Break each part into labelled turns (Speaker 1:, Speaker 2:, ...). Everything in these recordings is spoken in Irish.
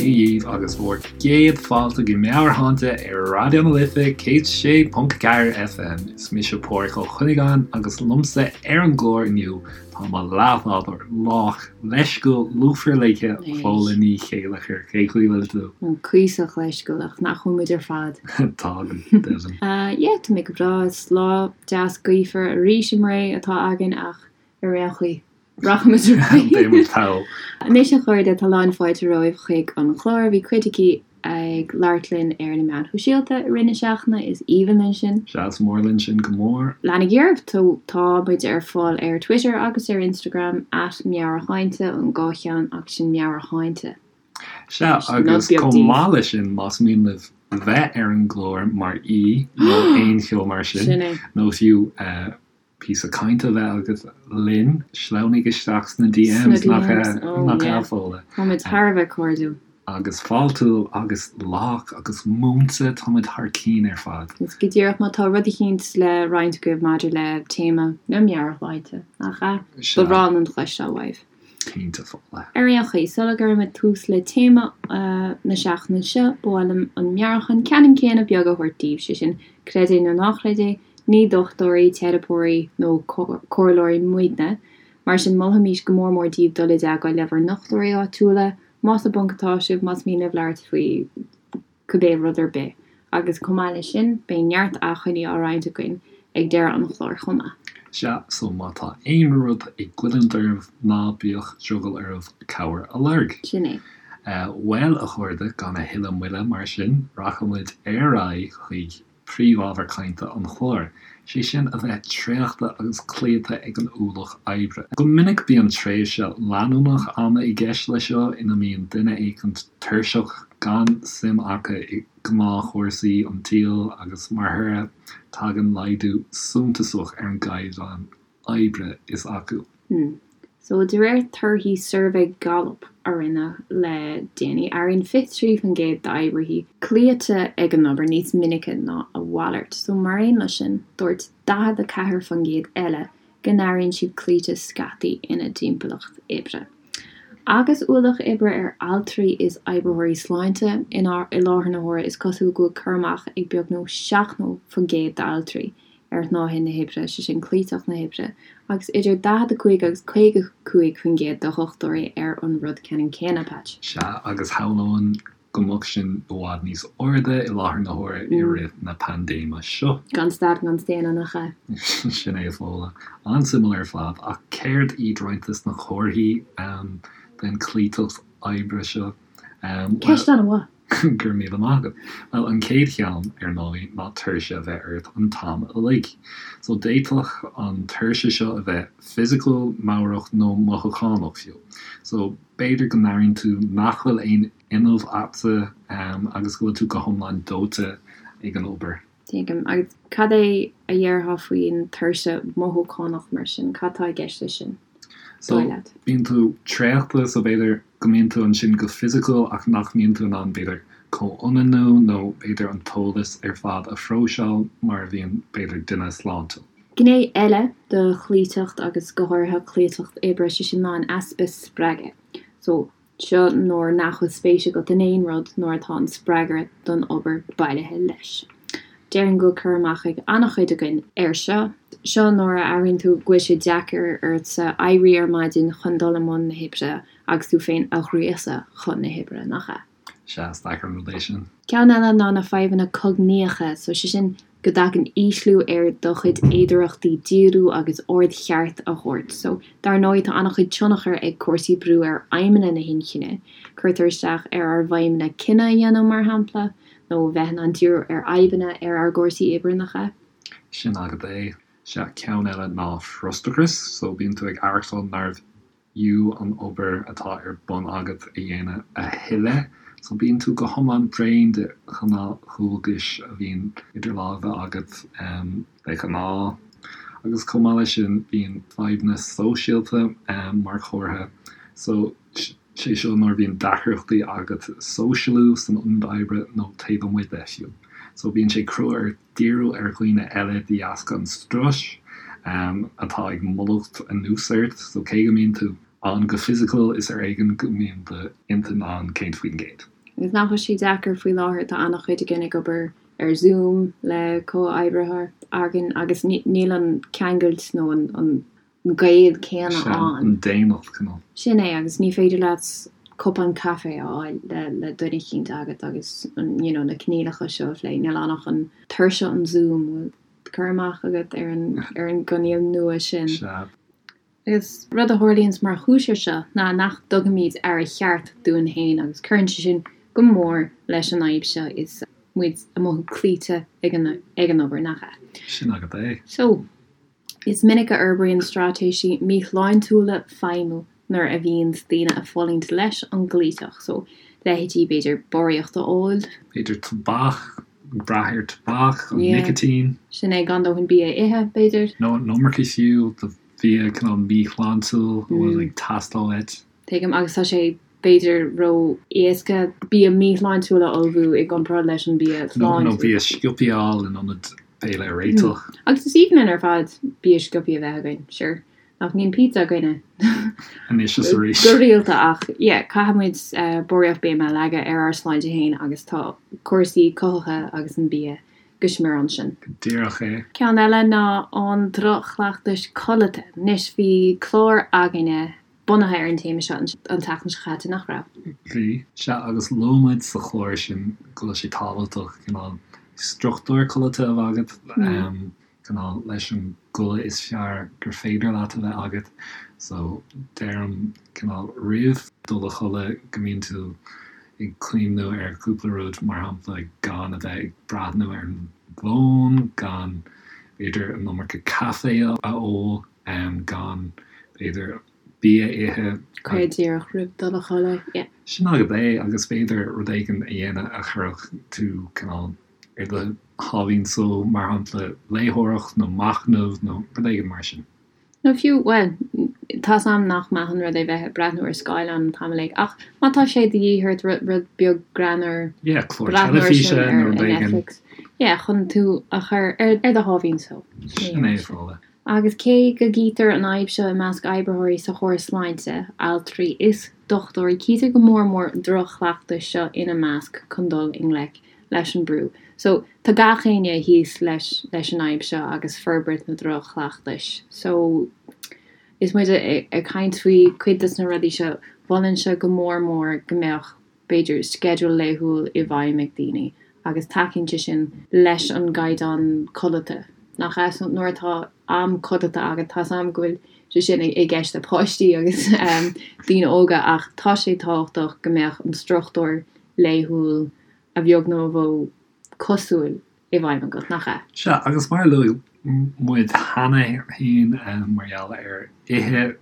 Speaker 1: Dia dhaoibh agus bhur gcéad fáilte go Meabhairshláinte ar Raidió na Life 106.4 FM. Is mise Pádhraic Ó Cuinneagáin agus liomsa ar an gclár inniu tá mo leathbhádóir lách, leisciúil, lúfar ligthe, Fódhla Ní Chéilleachair. Cén chaoi a bhfuil tú?
Speaker 2: Cuíosach leisciúil ach nach bhfuil muid ar fad?
Speaker 1: Tá, go deimhin.
Speaker 2: Yeah, tá mé go breá. Is lá deas gaofar arís i mBré atá againn ach ar aon chaoi, rachaimid ar aghaidh.
Speaker 1: Beidh muid thall.
Speaker 2: Anois a chairde, tá lán fáilte romhaibh chuig an chlár. Bhí cuid agaibh ag labhairt linn ar na meáin shóisialta i rith na seachtaine, is aoibhinn linn sin.
Speaker 1: Sea, is mór linn sin go mór.
Speaker 2: Leanaigí oraibh, tá muid ar fáil ar Twitter agus ar Instagram, at Meabhairshláinte, an dhá cheann ach sin Meabhairshláinte.
Speaker 1: Sea, agus chomh maith leis sin, más mian libh bheith ar an gclár mar aoi nó aon cheo mar sin, nó fiú píosa cainte a bheith agat linn, sleamhnaigh isteach sna DMs, nach ea, a Fódhla?
Speaker 2: Táimid thar a bheith cairdiúil.
Speaker 1: Agus fáiltiúil agus lách agus múinte, táimid thar cinn ar fad.
Speaker 2: Agus go díreach, má tá rud eicínt le roinnt agaibh maidir le téama na meabhairshláinte, nach ea? Ba bhreá linn cloisteáil uaibh.
Speaker 1: Cinnte, Fódhla.
Speaker 2: Ar aon chaoi, sula gcuirimid tús le téama na seachtaine seo, ba mhaith liom an meabhrúchán ceannann céanna beag a thabhairt daoibh, sé sin, creid é nó ná creid é, ní dochtúirí, teiripeoirí nó comhairleoirí muidne. Mar sin, molfaimís go mór mór daoibh dul i dteagmháil le bhur ndochtúirí áitiúla, más i bponc atá sibh, más mian libh labhairt faoi cibé rud ar bith. Agus chomh maith leis sin, beidh neart acmhainní á roinnt againn ag deireadh an chláir chomh maith.
Speaker 1: Sea, so má tá aon rud ag goilliúint oraibh, ná bíodh drogall oraibh cabhair a lorg.
Speaker 2: Sin é.
Speaker 1: Bhuel, a chairde, gan a thuilleadh moille mar sin, rachaimid ar aghaidh chuig príomhábhar cainte an chláir, sé sin a bheith traochta agus cloíte ag an ualach oibre. Go minic bíonn tréimhse leanúnach ama i gceist leis seo ina mbíonn duine éicint tuirseach, gan suim acu i ngnáthchúrsaí an tsaoil agus mar thoradh tagann laghdú suntasach ar an gcaighdeán oibre is acu.
Speaker 2: So, de réir torthaí suirbhé Gallup a rinneadh le déanaí, airíonn 23% d'oibrithe cloíte ag an obair níos minice ná a mhalairt. So, mar aon leis sin, dúirt 44% eile go n-airíonn siad cloíte scaití ina dtimpeallacht oibre. Agus ualach oibre ar altraí is oibritheoirí sláinte i láthair na huaire, is cosúil go bhfuil cur amach ag beagnach 70% d'altraí ar shnáithe na hoibre, sé sin cloíteacht na hoibre, agus idir 45 agus 55% de dhochtúirí ar an rud ceannann céanna, Patch.
Speaker 1: Sea, agus shamhlóinn go mbeadh sin i bhfad níos airde i láthair na huaire i rith na paindéime seo.
Speaker 2: Gan stad gan staonadh, nach ea?
Speaker 1: Sin é, a Fhódhla. An-suimiúil ar fad, ach céard iad roinnt des na comharthaí den chloíteacht oibre seo?
Speaker 2: Ceist an-mhaith.
Speaker 1: Go raibh míle maith agat. Bhuel, an chéad cheann, ar ndóigh, ná tuirse a bheith ort an t-am uilig. So, d'fhéadfadh an tuirse seo a bheith fisiciúil, meabhrach nó mothúchánach fiú. So, b'fhéidir go n-airíonn tú nach bhfuil aon fhuinneamh agatsa agus go bhfuil tú go hiomlán dóite ag an obair.
Speaker 2: Tuigim. Agus cad é a dhéarfá faoin tuirse mothúchánach mar sin? Cad tá i gceist leis sin,
Speaker 1: So, dóigh leat? bíonn tú traochta, so b'fhéidir go mbíonn tú ansin go fisiciúil ach nach mbíonn tú in ann b'fhéidir comhionannú nó b'fhéidir an t-eolas ar fad a phróiseáil mar a bhíonn b'fhéidir duine sláintiúil.
Speaker 2: Gné eile de chloíteacht agus go háirithe cloíteacht oibre, sé sin ná an easpa spreagaidh. So, Seo nuair nach bhfuil spéis agat in aon rud, nuair atá an spreagadh don obair bailithe leis. Déarfainn go bhfuil cur amach ag an-chuid againn air seo. Seo nuair a airíonn tú go bhfuil sé deacair ortsa éirí ar maidin chun dul i mbun na hoibre agus tú féin a ghríosadh chun na hoibre, nach ea?
Speaker 1: Sea, is deacair an rud é sin.
Speaker 2: Ceann eile ná na fadhbanna cognaíocha, so sé sin go dtagann ísliú ar do chuid fhéidearthachtaí díriú agus aird cheart a thabhairt. So, dar ndóigh, tá an-chuid tionchar ag cúrsaí brú ar fheidhmeanna na hinchinne. Cuirtear isteach ar ár bhfeidhmeanna cinneadh a dhéanamh, mar shampla, nó bheith in ann díriú ar fhadhbanna ar ár gcúrsaí oibre, nach ea?
Speaker 1: Sin agat é. Sea, ceann eile ná frustrachas. So, bíonn tú ag aireachtáil nárbh fhiú an obair atá ar bun agat a dhéanamh a thuilleadh. So bíonn tú go hiomlán bréan de ghnáthdhualgais a bhíonn idir lámha agat de ghnáth. Agus chomh maith leis sin bíonn fadhbanna sóisialta mar chomhartha. So sé seo nuair a bhíonn deacrachtaí agat sóisialú san ionad oibre nó taobh amuigh de fiú. So bíonn sé crua ort díriú ar dhaoine eile de dheasca an struis atá ag mullacht anuas ort. So cé go mbíonn tú ann go fisiciúil, is ar éigean go mbíonn d'intinn ann 100%.
Speaker 2: Agus nach bhfuil sé deacair faoi láthair, tá an-chuid againn ag obair ar Zoom le comhoibrithe againn agus níl an ceangailt nó an gaol céanna
Speaker 1: Sea,
Speaker 2: ann.
Speaker 1: an daonnacht, cineál.
Speaker 2: Sin é, agus ní féidir leat cupán caife a fháil le duine eicínt agat agus you know na coinníollacha seo a phlé. Níl ann ach an tuirse an Zoom, bhfuil cur amach agat ar an ar an gcoinníoll nua sin?
Speaker 1: Sea.
Speaker 2: Agus rud a tharlaíonns mar chúis ar seo ná nach dtugaimid aire cheart dúinn féin agus cuireann sé sin go mór leis an fhadhb seo is muid ag mothú cloíte ag an ag an obair, nach ea?
Speaker 1: Sin agat é.
Speaker 2: So. Is minic a fhorbraíonn straitéisí míshláintiúla feidhmiú nuair a bhíonns daoine ag fulaingt leis an gcloíteacht, so leithéidí b'fhéidir barraíocht a ól.
Speaker 1: B'fhéidir tobac, ag brath ar tobac, an nicitín.
Speaker 2: Sin é, gan dóthain bia a ithe, b'fhéidir.
Speaker 1: Nó an iomarca fiú de bhia cineál míshláintiúil a bhfuil ag teastáil uait.
Speaker 2: Tuigim, agus tá sé b'fhéidir ró-éasca bia míshláintiúil a ullmhú i gcomparáid leis an bia
Speaker 1: sláintiúil. Nó bia sciobtha a fháil in ionad béile a réiteach.
Speaker 2: Agus is aoibhinn linn ar fad bia sciobtha a bheith againn, sure. Nach mbíonn pizza againne
Speaker 1: Anois is arís.
Speaker 2: go rialta ach yeah, caithfidh muid barraíocht béime a leagadh ar ár sláinte féin agus tá cúrsaí cothaithe agus an bia go smior ansin.
Speaker 1: Go díreach é.
Speaker 2: Ceann eile ná an droch-chleachtais codlata. Anois bhí clár againne bunaithe ar an téama seo an tseachtain seo chaite, nach raibh?
Speaker 1: Bhí. Sea, agus luaigh muid sa chlár sin go bhfuil sé tábhachtach cineál struchtúr codlata a bheith agat, cineál leis an gcodladh is fearr gur féidir leat a bheith agat. So, deirim cineál roimh dul a chodladh go mbíonn tú ag cuimhniú ar chúpla rud, mar shampla gan a bheith ag breathnú ar an bhfón, gan b'fhéidir an iomarca caife a ól. gan, b'fhéidir, bia a ithe.
Speaker 2: Go díreach roimh dul a chodladh, yeah.
Speaker 1: Sin agat é, agus b'fhéidir rud éigin a dhéanamh a chuirfeadh tú cineál ar do sháimhín só, mar shampla léitheoireacht nó machnamh nó rud éigin mar sin.
Speaker 2: Nó fiú, bhuel, tá's a'm nach maith an rud é bheith ag breathnú ar scáileán an t-am uilig, ach má tá sé de dhíth ort rud beag greannmhar,
Speaker 1: Yeah, clár
Speaker 2: breathnú air sin
Speaker 1: teilifíse
Speaker 2: ar
Speaker 1: nó rud éigin.
Speaker 2: Netflix, yeah, chun tú a chur ar do sháimhín só.
Speaker 1: Sin é, Fódhla.
Speaker 2: Agus cé go gcítear an fhadhb seo i measc oibritheoirí sa chóras sláinte, altraí is dochtúirí, cítear go mór mór an droch-chleachtas seo ina measc chun dul i ngleic leis an brú. So, tá gach éinne thíos leis leis an fhadhb seo agus forbairt na droch-chleachtais. So, is muid ag caint faoi cuid des na rudaí seo, mholfainnse go mór mór go mbeadh b'fhéidir, sceideal laethúil i bhfeidhm ag daoine agus tacaíonn sé sin leis an gcaighdeán codlata, nach ea? So nuair atá am codlata agat, tá's a'm go bhfuil sé sin i gceist le páistí agus daoine óga ach tá sé tábhachtach go mbeadh an struchtúr laethúil a bheag nó a mhó cosúil i bhfeidhm agat, nach ea?
Speaker 1: Sea, agus mar a luaigh muid cheana féin mar gheall ar ithe,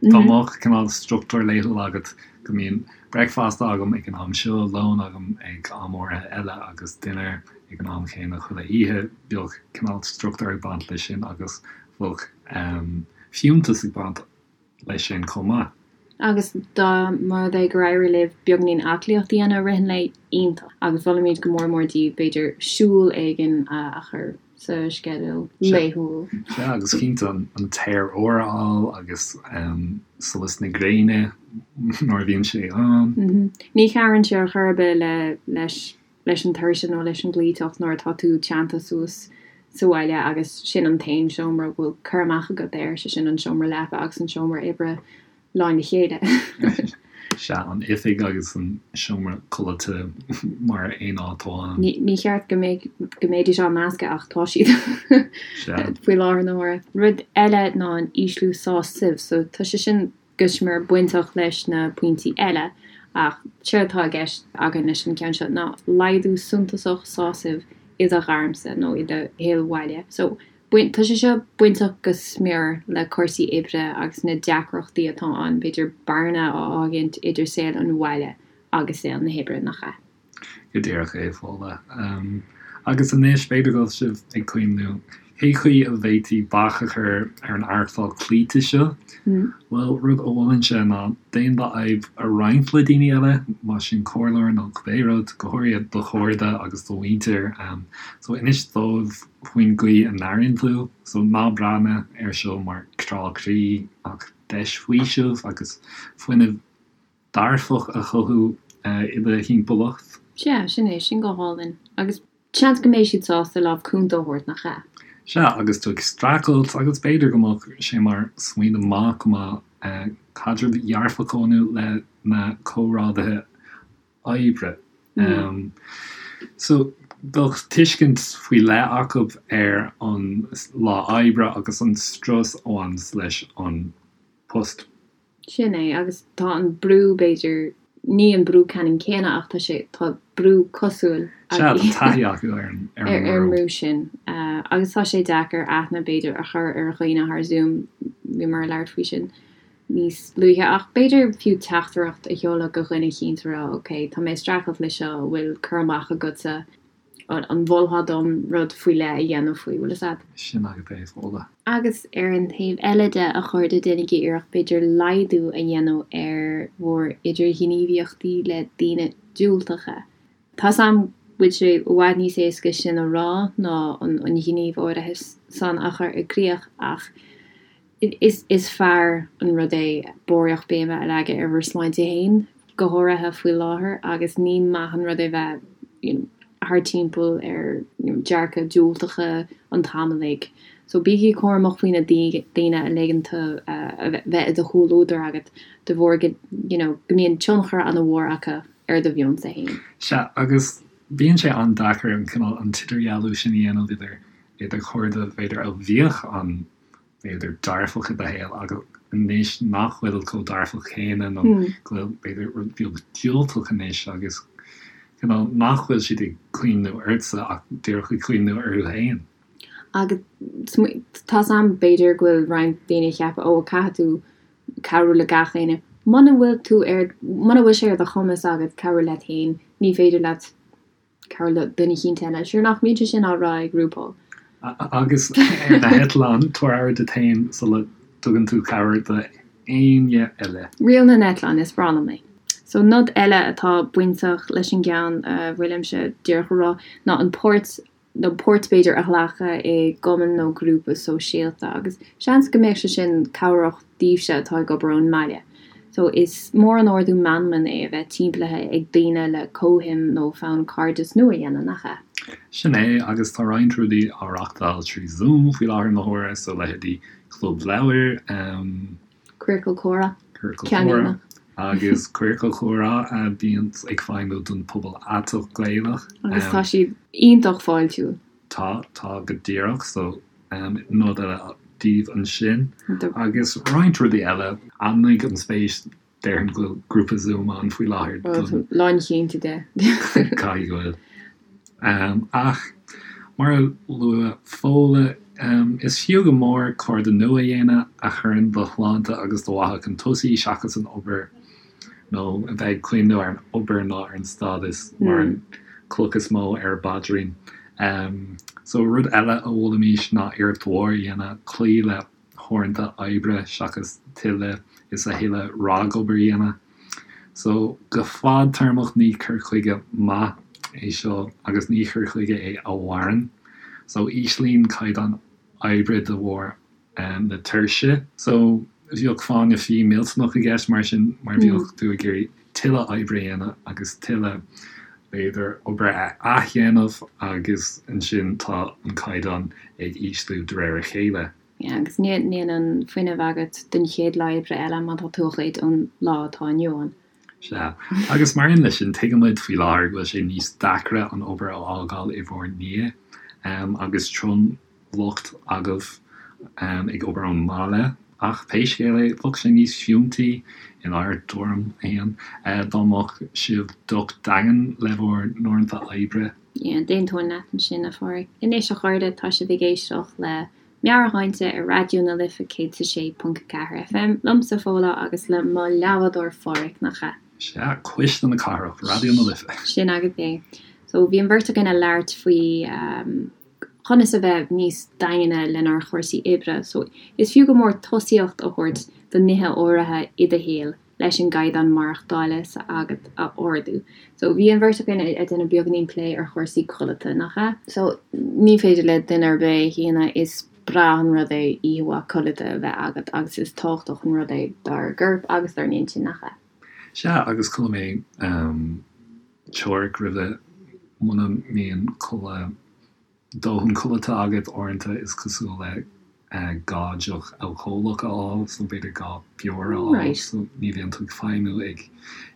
Speaker 1: dá mbeadh cineál struchtúr laethúil agat, go mbíonn bricfeasta agam ag an am seo, lón agam ag am áirithe eile agus dinnéar ag an am chéanna chuile oíche, bheadh cineál struchtúr ag baint leis sin agus bheadh fiúntas ag baint leis sin chomh maith.
Speaker 2: Agus dá mba rud é gur éirigh libh beagáinín aclaíocht a dhéanamh i rith an lae, iontach. Agus mholfaimid go mór mór daoibh, b'fhéidir, siúl éigin a chur sa sceideal laethúil.
Speaker 1: Sea, agus cinnte an t-aer úr a fháil agus solas na gréine nuair a bhíonn sé ann.
Speaker 2: Ní chabhraíonn sé ar chor ar bith le leis leis an tuirse nó leis an gcloíteacht nuair atá tú teannta suas sa bhaile agus sin an t-aon seomra a bhfuil cur amach agat air, sé sin an seomra leapa agus an seomra oibre lán le chéile.
Speaker 1: Sea, an oifig agus an seomra codlata mar aon áit amháin.
Speaker 2: Ní cheart go mbeidh, go mbeidís á meascadh ach tá siad faoi láthair na huaire. Rud eile ná an ísliú sásaimh, so tá sé sin go smior bainteach leis na pointí eile, ach séard atá i gceist againn leis an gceann seo ná laghdú suntasach sásaimh i do ghairmse nó i do shaol bhaile. So, tá sé seo bainteach go smior le cúrsaí oibre agus na deacrachtaí atá ann, b'fhéidir bearna a fhágaint idir saol an bhaile agus saol na hoibre, nach ea?
Speaker 1: Go díreach é, Fódhla. Agus anois, b'fhéidir go bhfuil sibh ag cuimhniú, cé chaoi a bhféadfaí bac a chur ar an aireachtáil cloíte seo? Bhuel, rud a mholfainnse ná déan d'fhadhb a roinnt le daoine eile, más sin comhairleoir nó cibé rud, go háirithe do chairde agus do mhuintir. So, inis dóibh faoin gcaoi a n-airíonn tú. So, ná breathnaigh air seo mar crá croí ach deis faoiseamh agus fuinneamh dearfach a chothú. i do thimpeallacht.
Speaker 2: Sea, sin é, sin go hálainn. Agus seans go mbeidh siad sásta lámh cúnta a thabhairt, nach ea?
Speaker 1: Sea, agus tú ag streachailt, agus b'fhéidir go mbeadh sé mar smaoineamh maith go mbeadh caidreamh dhearfach a bhunú le na comrádaithe oibre. So, bheadh tuiscint faoi leith acu ar an lá oibre agus an strus a bhaineas leis an post.
Speaker 2: Sin é, agus tá an brú, b'fhéidir, ní an brú ceannann céanna ach tá sé, tá brú cosúil
Speaker 1: Sea, tá taithí acu ar an
Speaker 2: ar an mbrú sin. Agus tá sé deacair aithne, b'fhéidir, a chur ar dhaoine thar Zoom, bhíomar ag labhairt faoi sin níos luaithe, ach b'fhéidir fiú teachtaireacht a sheoladh go dhuine eicínt a rá, ok, tá mé ag streachailt le seo, an bhfuil cur amach agatsa, an mholfá dom rud faoi leith a dhéanamh faoi, bhfuil fhios a'd?
Speaker 1: Sin agat é, Fódhla.
Speaker 2: Agus ar an taobh eile de, a chairde, déanaigí iarracht b'fhéidir laghdú a dhéanamh ar bhur idirghníomhaíochtaí le daoine diúltacha. Tá's a'm go bhfuil sé i bhfad níos éasca sin a rá ná an gníomh áirithe san a chur i gcrích ach is fearr an rud é barraíocht béime a leagadh ar bhur sláinte féin, go háirithe faoi láthair, agus ní maith an rud é bheith you know thar timpeall ar you know dearcadh diúltacha an t-am uilig. So bígí cúramach faoi na daoine a ligeann tú a bheith i do chomhluadar agat de bharr go you know go mbíonn tionchar an-mhór acu ar do mheonsa féin.
Speaker 1: Sea, agus bíonn sé an-deacair an cineál, an t-idirdhealú sin a dhéanamh idir idir cairde b'fhéidir a bhíodh an b'fhéidir dearfach i do shaol agus anois nach bhfuil chomh dearfach céanna nó go bhfuil b'fhéidir rud beag diúltach anois agus cineál nach bhfuil siad ag cuimhniú ortsa ach díreach ag cuimhniú orthu féin.
Speaker 2: Agus tá's a'm b'fhéidir go bhfuil roinnt daoine ag ceapadh ó caithfidh tú cabhrú le gach éinne. Muna bhfuil tú ar, muna bhfuil sé ar do chumas agat cabhrú leat féin, ní féidir leat cabhrú le duine eicínt eile. Sure nach mbíonn sé sin á rá ag RuPaul?
Speaker 1: Agus ar na heitleáin, tabhair aire duit féin sula dtugann tú cabhair do éinne eile.
Speaker 2: Riail na n-eitleán, is breá liom é. So nod eile atá bainteach leis an gceann a bhfuilimse díreach a rá ná an páirt nó páirt b'fhéidir a ghlacadh i gcumann nó grúpa sóisialta agus seans go mbeadh sé sin cabhrach daoibhse atá ag obair ón mbaile. So is mór an ardú meanman é a bheith timpeallaithe ag daoine le comhshuim nó fonn cairdeas nua a dhéanamh, nach ea?
Speaker 1: Sin é, agus tá roinnt rudaí á reachtáil trí Zoom faoi láthair na huaire, so leithéidí Club Leabhar,
Speaker 2: Ciorcal Comhrá.
Speaker 1: Ciorcal Comhrá. Agus Ciorcal Comhrá a bhíonn ag feidhmiú don pobal aiteach Gaelach.
Speaker 2: Agus tá siad iontach fáiltiúil.
Speaker 1: Tá, tá go díreach. So, nod eile daoibh ansin. Agus roinnt rudaí eile. Ainmnigh an spéis, déarfainn go bhfuil grúpa Zoom ann faoi láthair
Speaker 2: don. Lánchinnte de.
Speaker 1: Caithfidh go bhfuil. Ach, mar a luaigh Fódhla, is fiú go mór cairde nua a dhéanamh a chuireann do shláinte agus do mhaithe chun tosaigh seachas an obair, nó a bheith ag cuimhniú ar an obair ná ar an stádas mar an chloch is mó ar a bpaidrín. So, rud eile a mholfaimis ná iarracht mhór a dhéanamh cloí le huaireanta oibre seachas tuilleadh is a thuilleadh ragobair a dhéanamh. So, go fadtéarmach ní cur chuige maith é seo agus ní cur chuige é a mhaireann. So, íslíonn caighdeán oibre de bharr na tuirse. So, bheadh fáinne fí millteanach i gceist mar sin mar bheadh tú ag iarraidh tuilleadh oibre a dhéanamh agus tuilleadh, b'fhéidir, obair a athdhéanamh agus ansin tá an caighdeán ag ísliú de réir a chéile.
Speaker 2: Yeah, agus níl an fuinneamh agat don chéad lá oibre eile má tá tú á ghoid ón lá atá inniu ann.
Speaker 1: Sea. Agus mar aon leis sin, tuigimid faoi láthair go bhfuil sé níos deacra an obair a fhágáil i bhur ndiaidh agus tromlucht agaibh ag obair ón mbaile. Ach pé scéal é, bheadh sé níos fiúntaí, inár dtuairim féin, dá mbeadh sibh docht daingean le bhur n-uaireanta oibre.
Speaker 2: Yeah, d'aontóinn leat ansin, a Pháraic. Anois, a chairde, tá sibh ag éisteacht le Meabhairshláinte ar Raidió na Life 106.4 FM, liomsa Fódhla agus le mo leathbhádóir Pháraic, nach ea?
Speaker 1: Sea, cuisle na cathrach, Raidió na Life.
Speaker 2: Sin agat é. So, bhí an bheirt againn ag labhairt faoi conas a bheith níos daingne lenár chúrsaí oibre. So, is fiú go mór tosaíocht a thabhairt do nithe áirithe i do shaol. leis an gcaighdeán maireachtála s'agat a ardú. So bhí an bheirt againn ag déanamh beagáinín plé ar chúrsaí codlata, nach ea? So ní féidir le duine ar bith a shéanadh, is breá an rud é oíche mhaith codlata a bheith agat agus is tábhachtach an rud é dár gcorp agus dár n-intinn, nach ea?
Speaker 1: Sea, agus chuala mé teoiric roimhe, muna mbíonn codladh, dóthain codlata agat uaireanta is cosúil le gá deoch alcólach a fháil, so b'fhéidir gá beoir a fháil, so ní bhíonn tú ag feidhmiú ag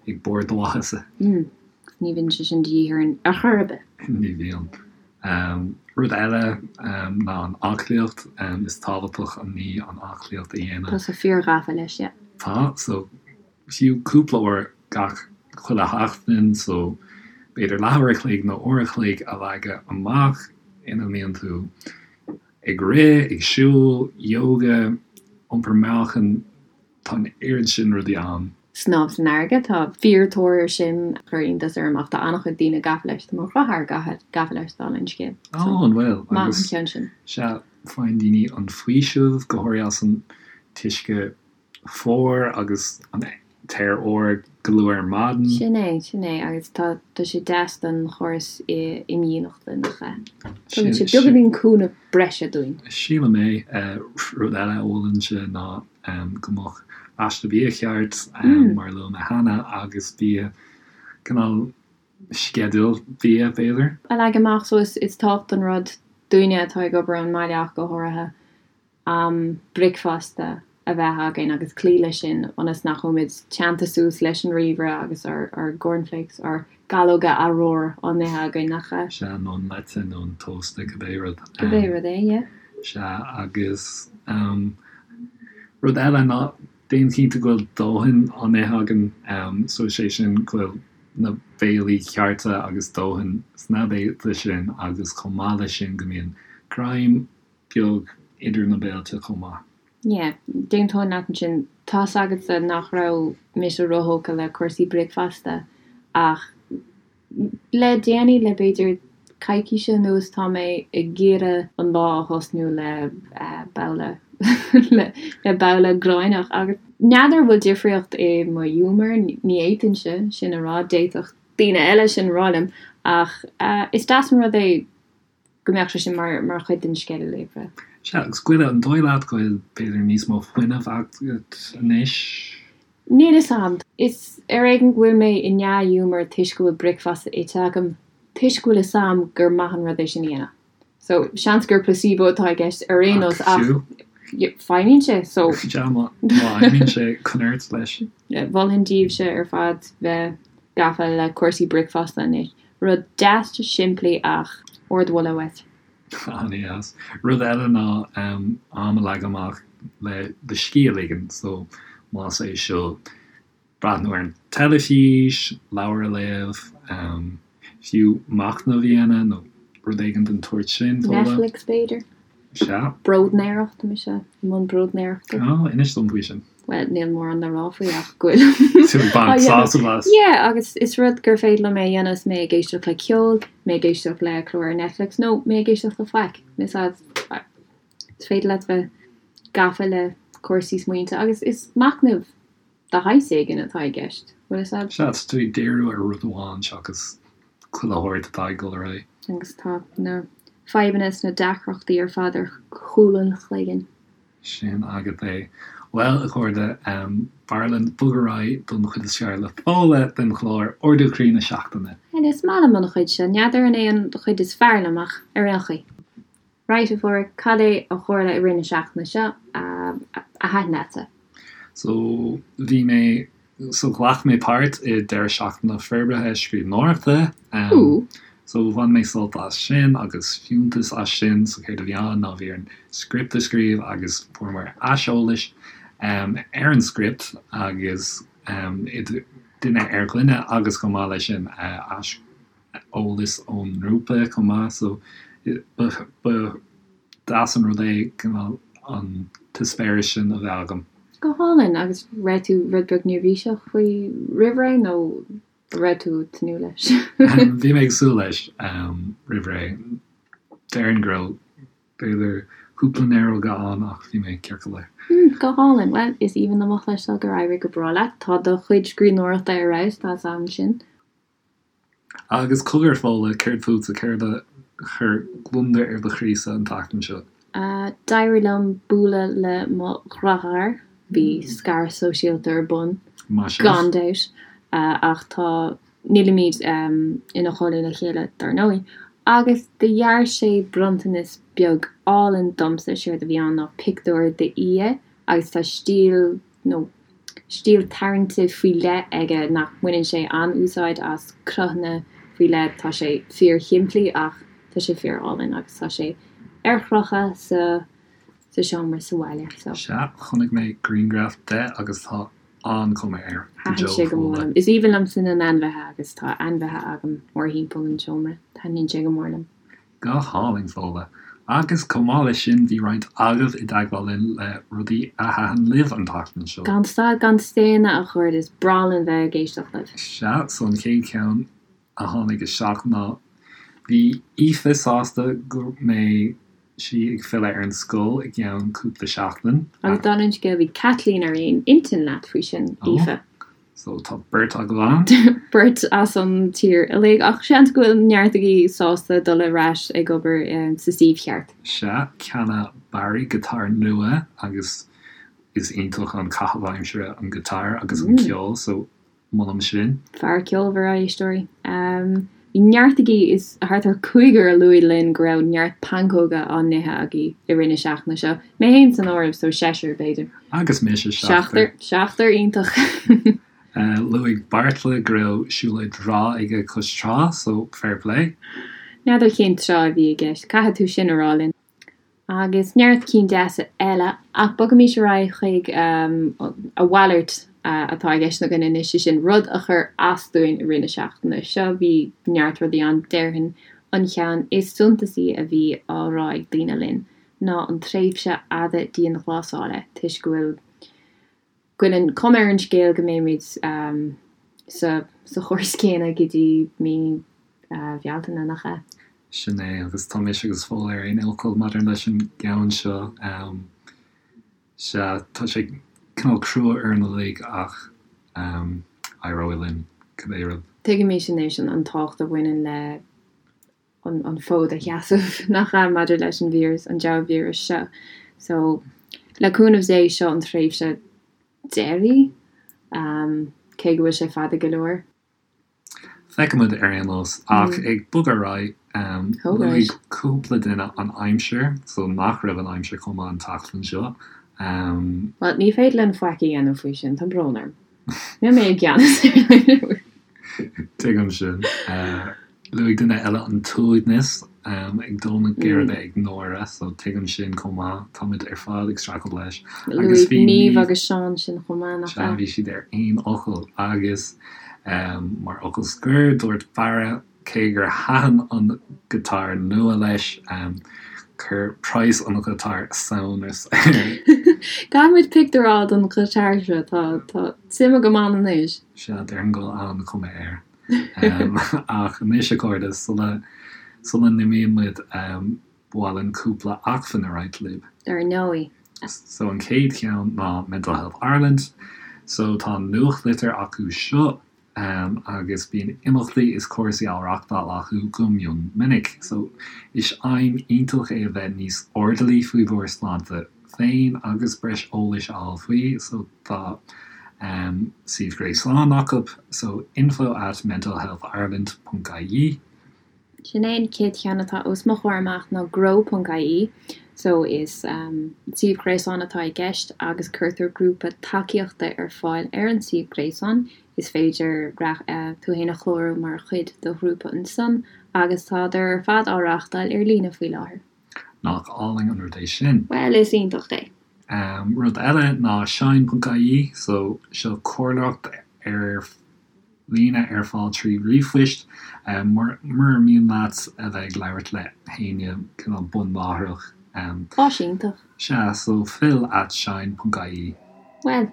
Speaker 1: ag barr do mhaitheasa.
Speaker 2: Ní bhíonn sé sin de dhíth orainn ar chor ar bith.
Speaker 1: Ní bhíonn. Rud eile ná an aclaíocht. Is tábhachtach an ní an aclaíocht a dhéanamh.
Speaker 2: Tá tusa fíor-ghafa leis, yeah.
Speaker 1: Tá, so fiú cúpla uair gach chuile sheachtain, so b'fhéidir leathuair a chloig nó uair a chloig a leagadh amach ina mbíonn tú ag rith, ag siúl, yoga, iompar meáchain, tá an oiread sin rudaí ann.
Speaker 2: Snámh san fharraige, tá fíor-tóir air sin, chuir iontas orm ach tá an-chuid daoine gafa leis, tá mo dheartháir gafa leis dála an scéil.
Speaker 1: Ó, an bhfuil?
Speaker 2: Maith an ceann sin.
Speaker 1: Sea, faigheann daoine an faoiseamh, go háirithe as an t-uisce fuar agus an t-aer úr go luath ar maidin.
Speaker 2: Sin é, sin é, agus tá, tá sé deas don chóras imdhíonachta, nach ea? Tugann sé beagáinín cúnamh breise dúinn.
Speaker 1: Sílim é. Rud eile a mholfainnse ná go mbeadh aiste bia cheart, mar a luaigh mé cheana, agus bia, cineál sceideal bia, b'fhéidir.
Speaker 2: a leagan amach, so is tábhachtach an rud dúinne atá ag obair ón mbaile ach go háirithe. am bricfeasta a bheith againn agus cloí leis sin ionas nach bhfuilimid teannta suas leis an ríomhaire agus ár gcornflakes, ár gcalóga arúir á n-ithe againn, nach
Speaker 1: ea? Sea, nó an leite nó an tósta, cibé rud.
Speaker 2: Cibé rud é, yeah.
Speaker 1: Sea, agus rud eile ná déan cinnte go bhfuil dóthain á n-ithe againn, so is é sin go bhfuil na béilí cearta agus dóthain sna béilí sin agus chomh maith leis sin go mbíonn greim beag idir na béilte chomh maith.
Speaker 2: Yeah, d'aontóinn leat ansin. Tá's agatsa nach raibh mise róthógtha le cúrsaí bricfeasta ach le déanaí, le b'fhéidir coicíse anuas, tá mé ag iarraidh an lá a thosnú le babhla le babhla gráinneach agus n'fheadar an bhfuil difríocht i mo ghiúmar, ní fhéadfainnse sin a rá, d'fhéadfadh daoine eile sin a rá liom ach is deas an rud é go mbeadh sé sin mar mar chuid den sceideal oibre.
Speaker 1: Sea, agus Goile, an dóigh leat go bhfuil b'fhéidir níos mó fuinnimh agat anois?
Speaker 2: Níl fhios a'm. Is ar éigean go bhfuil mé i ndea-ghiúmar toisc go bhfuil bricfeasta ite agam, toisc go bhfuil fhios a'm gur maith an rud é sin a dhéanamh. So, seans gur placebo atá i gceist ar aon nós ach feidhmíonn sé, so.
Speaker 1: Sea, má fheidhmíonn sé, coinnigh ort leis.
Speaker 2: Mholfainn daoibhse ar fad bheith gafa le cúrsaí bricfeasta anois. Rud deas simplí ach ardmholadh uait.
Speaker 1: An-deas. Rud eile ná am a leagan amach le do scíth a ligean. So, más é seo breathnú ar an teilifís, leabhar a léamh, fiú machnamh a dhéanamh nó rud éigin den tsórt sin.
Speaker 2: Netflix b'fhéidir?
Speaker 1: Sea.
Speaker 2: Bróidnéireacht, tá mise i mbun bróidnéireachta.
Speaker 1: Ó, inis dom faoi sin.
Speaker 2: Bhuel, níl mórán le rá faoi ach go bhfuil.
Speaker 1: Tú ag baint sásamh as.
Speaker 2: Yeah, agus is rud gur féidir liom é a dhéanamh is mé ag éisteacht le ceol, mé ag éisteacht le clár ar Netflix nó mé ag éisteacht le faic. Is is féidir leat bheith gafa le cúrsaí smaointe agus is machnamh de shaghas éigin atá i gceist. Bhfuil
Speaker 1: fhios a'd? Sea, tá tú ag díriú ar rud amháin seachas chuile shórt atá ag dul ar aghaidh.
Speaker 2: Agus tá na fadhbanna is na deacrachtaí ar fad ar chúl an chloiginn.
Speaker 1: Sin agat é. Bhuel, a chairde, b'fhearr linn bogadh ar aghaidh don chuid is fearr le Fódhla den chlár, Ardú Croí na Seachtaine.
Speaker 2: Bhuel, is maith liom an chuid seo. N'fheadar an é an chuid is fearr liom ach ar aon chaoi. Right, a Pháraic, cad é a tharla i rith na seachtaine seo a thaitin leatsa?
Speaker 1: So, bhí mé, so ghlac mé páirt i deireadh seachtaine forbartha scríbhneoireachta.
Speaker 2: Ooh.
Speaker 1: So bhain mé sult as sin agus fiúntas as sin. So céard a bhí ann ná bhí orainn script a scríobh agus fuaireamar aiseolais ar an script agus idir duine ar dhuine agus chomh maith leis sin ais eolas ón ngrúpa chomh maith so ba deas an rud é cineál an t-eispéireas sin a bheith agam.
Speaker 2: Go hálainn! Agus raibh tú rud beag neirbhíseach faoi roimh ré nó raibh tú ag tnúth leis?
Speaker 1: Bhí mé ag súil leis roimh ré. Déarfainn go raibh b'fhéidir cúpla néaróga ann ach bhí mé ceart go leor.
Speaker 2: Go hálainn! Bhuel, is aoibhinn liom a chloisteáil gur éirigh go breá leat. Tá do chuid scríbhneoireachta ar fheabhas, tá 's a'm sin.
Speaker 1: Agus cogar, Fódhla, céard fútsa, céard a chuir gliondar ar do chroísa an tseachtain seo?
Speaker 2: D'éirigh liom bualadh le mo dheartháir, bhí scaradh sóisialta ar bun,
Speaker 1: Maith
Speaker 2: sibh. gan dabht. Ach tá, nílimid ina chónaí le chéile dar ndóigh. Agus do dhear sé bronntanas beag álainn domsa, séard a bhí ann ná pictiúr d'fhia agus tá stíl nó stíl tarraingte faoi leith aige nach mbaineann sé an-úsáid as cruthanna faoi leith, tá sé fíor-shimplí ach tá sé fíor-álainn agus tá sé ar chrochadh sa sa seomra sa bhaile
Speaker 1: so. Sea, chonaic mé grianghraf de agus tá an-chuma air.
Speaker 2: Go Thaitin sé go mór liom. Is aoibhinn liomsa na n-ainmhithe agus tá ainmhithe agam mórthimpeall an tseomra. Taitníonn sé go mór liom.
Speaker 1: Go hálainn, Fódhla. Agus chomh maith leis sin, bhí roinnt agaibh i dteagmháil linn le rudaí a thaitin libh an tseachtain seo.
Speaker 2: Gan stad gan staonadh, a chairde, is breá linn bheith ag éisteacht libh.
Speaker 1: Sea, so an chéad cheann a tháinig isteach ná bhí Aoife sásta go mbeidh sí ag filleadh ar an scoil i gceann cúpla seachtain.
Speaker 2: Agus dála an scéil, bhí Caitlín ar aon intinn leat faoi sin, Aoife.
Speaker 1: So tá beirt agaibh ann.
Speaker 2: Beirt as an tír uilig, ach seans go bhfuil neart agaibh sásta dul ar ais ag obair sa suíomh cheart.
Speaker 1: Sea, cheannaigh Barry giotár nua agus is iontach an caitheamh aimsire an giotár agus an ceol, so molaim sin.
Speaker 2: Fear ceolmhar, a éisteoirí. Bhí neart agaibh, is thart ar chúigear a luaigh linn go raibh neart pancóga á n-ithe agaibh i rith na seachtaine seo, mé féin san áireamh, so seisear, b'fhéidir.
Speaker 1: Agus mise,
Speaker 2: seachtar. Seachtar, iontach.
Speaker 1: Luaigh Beartla go raibh siúlóid bhreá aige cois trá, so fair play.
Speaker 2: N'fheadar cén trá a bhí i gceist, caithfidh tú sin a rá linn. Agus neart cinn deasa eile, ach bogaimis ar aghaidh chuig a mhalairt atá i gceist againn anois, sé sin, rud a chuir as dúinn i rith na seachtaine seo. Bhí neart rudaí ann, déarfainn an cheann is suntasaí a bhí á rá ag daoine linn ná an tréimhse fhada dianghlasála, toisc go bhfuil go bhfuil an cuma ar an scéal go mbeimid sa sa chóras céanna go dtí mí Bhealtaine, nach ea?
Speaker 1: Sin é, agus tá mise agus Fódhla ar aon fhocal maidir leis an gceann seo. Sea, tá sé cineál crua orainn uilig ach éireoidh linn, cibé rud.
Speaker 2: Tuigimid anois an tábhacht a bhaineann le an fód a sheasamh, nach ea, maidir leis an víreas, an diabhal víreas seo. So, le cúnamh Dé, seo an tréimhse deiridh, cé go bhfuil sé fada go leor.
Speaker 1: Feicfimid ar aon nós. Ach ag bogadh ar aghaidh, luaigh cúpla duine an aimsir, so nach raibh an aimsir chomh maith an tseachtain seo.
Speaker 2: Bhuel, ní féidir linn faic a dhéanamh faoi sin, tá brón orm. Níl mé i gceannas ar an
Speaker 1: aimsir. Tuigim sin. Luaigh duine eile an t-uaigneas ag dó na geirbe ag náire, so tuigim sin chomh maith. Táimid ar fad ag streachailt leis.
Speaker 2: Agus bhí Niamh agus Seán sin chomh maith,
Speaker 1: nach ea? Bhí siad ar aon fhocal. Agus mar fhocal scoir, dúirt Barra cé gur thaitin an giotár nua leis, chuir praghas an ghiotáir samhnas air.
Speaker 2: Caithfimid pictiúr a fháil den ghiotár seo, tá suim agam ann anois.
Speaker 1: Sea, déarfainn go bhfuil an-chuma air. Ach anois, a chairde, sula sula n-imíonn muid, ba mhaith linn cúpla acmhainn a roinnt libh.
Speaker 2: Dar ndóigh.
Speaker 1: So an chéad cheann ná Mental Health Ireland. So tá nuachtlitir acu seo agus bíonn imeachtaí is cúrsaí á reachtáil acu go mion minic. So is aidhm iontach é a bheith níos airdeallaí faoi bhur sláinte féin agus breis eolais a fháil faoi. So tá suíomh gréasáin acu, so info at mentalhealthireland ponc ie.
Speaker 2: Sin é an chéad cheann atá os mo chomhair amach ná grow ponc ie. So is suíomh gréasáin atá i gceist agus cuirtear grúpa tacaíochta ar fáil ar an suíomh gréasáin. Is féidir tú fhéin a chlárú mar chuid de ghrúpa ansan agus tádar ar fad á reáchtáil ar líne faoi láthair.
Speaker 1: Nach álainn an rud é sin?
Speaker 2: Bhuel, is iontach é.
Speaker 1: Rud eile ná shine.ie, so seo comhairleoireacht ar líne ar fáil trí ríomhphoist. Mura mian leat a bheith ag labhairt le héinne cineál bunláithreach.
Speaker 2: Áis iontach.
Speaker 1: Sea, so phil at shine.ie.
Speaker 2: Bhuel.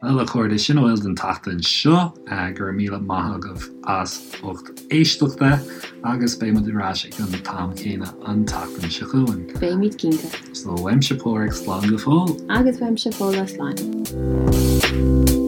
Speaker 1: Bhuel, a chairde, sin a bhfuil don tseachtain seo. Go raibh míle maith agaibh as ucht éisteachta agus beidh muid ar ais ag an t-am céanna an tseachtain seo chugainn.
Speaker 2: Beimid cinnte.
Speaker 1: So, uaimse Páraic, slán go fóill.
Speaker 2: Agus uaimse Fódhla, slán.